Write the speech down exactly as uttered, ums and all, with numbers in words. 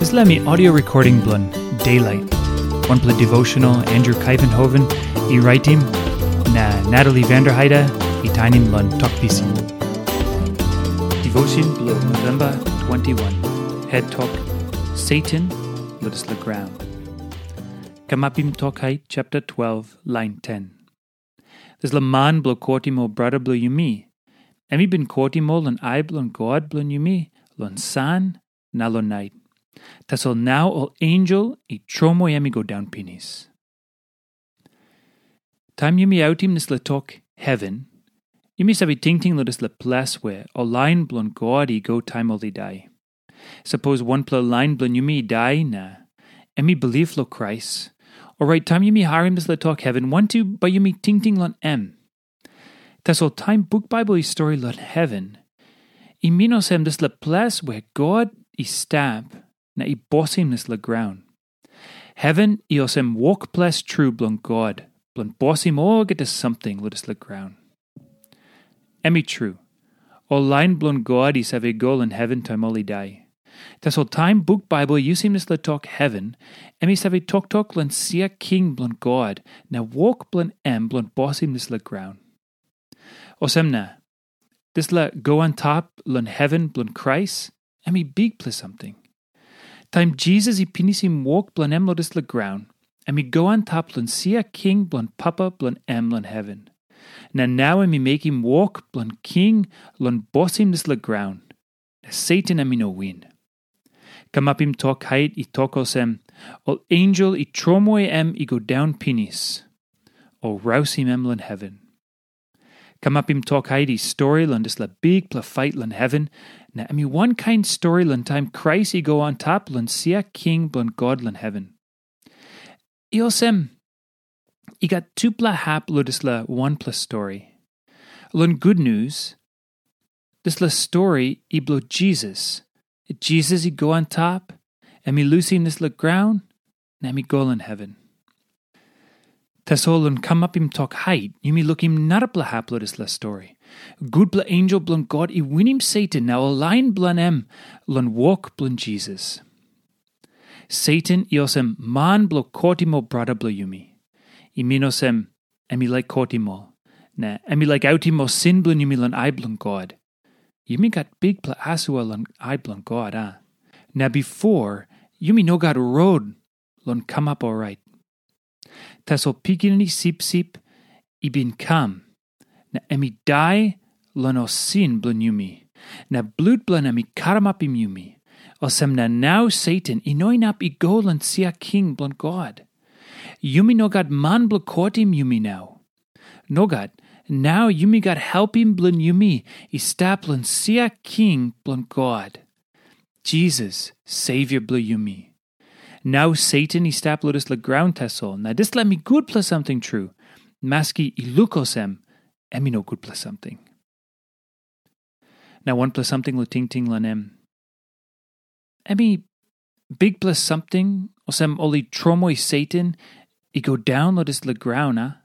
Dispela mi audio recording bilong Daylight, wanpela devotional Andrew Kaivenhoven i raitim, na Natalie Vanderheide i tainim long Tok Pisin. Devotion bilong November twenty-one. Head Tok, Satan, Lotus Laground. Kamapim Tok Hait, chapter twelve, line ten. Dispela man bilong kotim ol brata bilong yumi, em i bin kotim ol long ai bilong God bilong yumi, long san na long nait. Tasol nau ol ensel i tromoi em i go daun pinis. Taim yumi autim dispela tok heven, yumi save tingting long dispela ples where ol lain bilong God i go taim ol i dai. Sapos wanpela lain bilong yumi i dai na em i bilip long Krais, orait taim yumi harim dispela tok heven, wantu bai yumi tingting long em. Tasol taim buk Baibel i stori long heven, i min olsem dispela ples where God i stap na i bosim dispela graun. Heven i olsem wokples tru bilong God, bilong bosim olgeta samting long dispela graun. Em i tru, ol lain bilong God i save go long heven taim ol i dai. Tasol taim buk Baibel i yusim dispela tok heven, em i save toktok long sia king bilong God na wok bilong em bilong bosim dispela graun. Olsem na, dispela go antap long heven bilong Krais, em i bikpela samting. Taim Jisas i pinisim wok bilong em long dispela graun, em i go antap long sia king bilong Papa bilong em long heven. Na nau em i mekim wok bilong king long bosim dispela graun, na Satan em i no win. Kamapim Tok Hait i tok olsem, ol ensel i tromoi em i go daun pinis, o rausim em long heven. Kamapim Tok Hait i stori long dispela bikpela fait long heven, na em i wankain stori long taim Krais i go antap long sia king bilong God long heven. I olsem, i gat tupela hap long dispela wanpela stori. Long gutnius, dispela stori i bilong Jisas. Jisas i go antap, em i lusim dispela graun, na em i go long heven. Tasol long kamapim Tok Hait, yumi lukim narapela hap long dispela stori. Gutpela ensel bilong God i winim Satan na ol lain bilong em long wok bilong Jisas. Satan i olsem man bilong kotim ol brata bilong yumi. I min olsem, em i laik kotim ol, na em i laik autim ol sin bilong yumi long ai bilong God. Yumi gat bikpela asua long ai bilong God, a? Na bipo, yumi no gat rot long kamap orait. Tasol Pikinini Sipsip i bin kam, na em i dai long ol sin bilong yumi, na blut bilong em i karamapim yumi. Olsem na nau Satan i no inap i go long sia king bilong God. Yumi no gat man bilong kotim yumi nau. Nogat, nau yumi gat helpim bilong yumi i stap long sia king bilong God, Jisas, Savior bilong yumi. Nau Satan i stap long dispela graun tasol, na dispela em i gutpela samting tru, maski i luk olsem em i no gutpela samting. Na wanpela samting long tingting long em. Em i bikpela samting, olsem ol i tromoi Satan i go daun long dispela graun, a?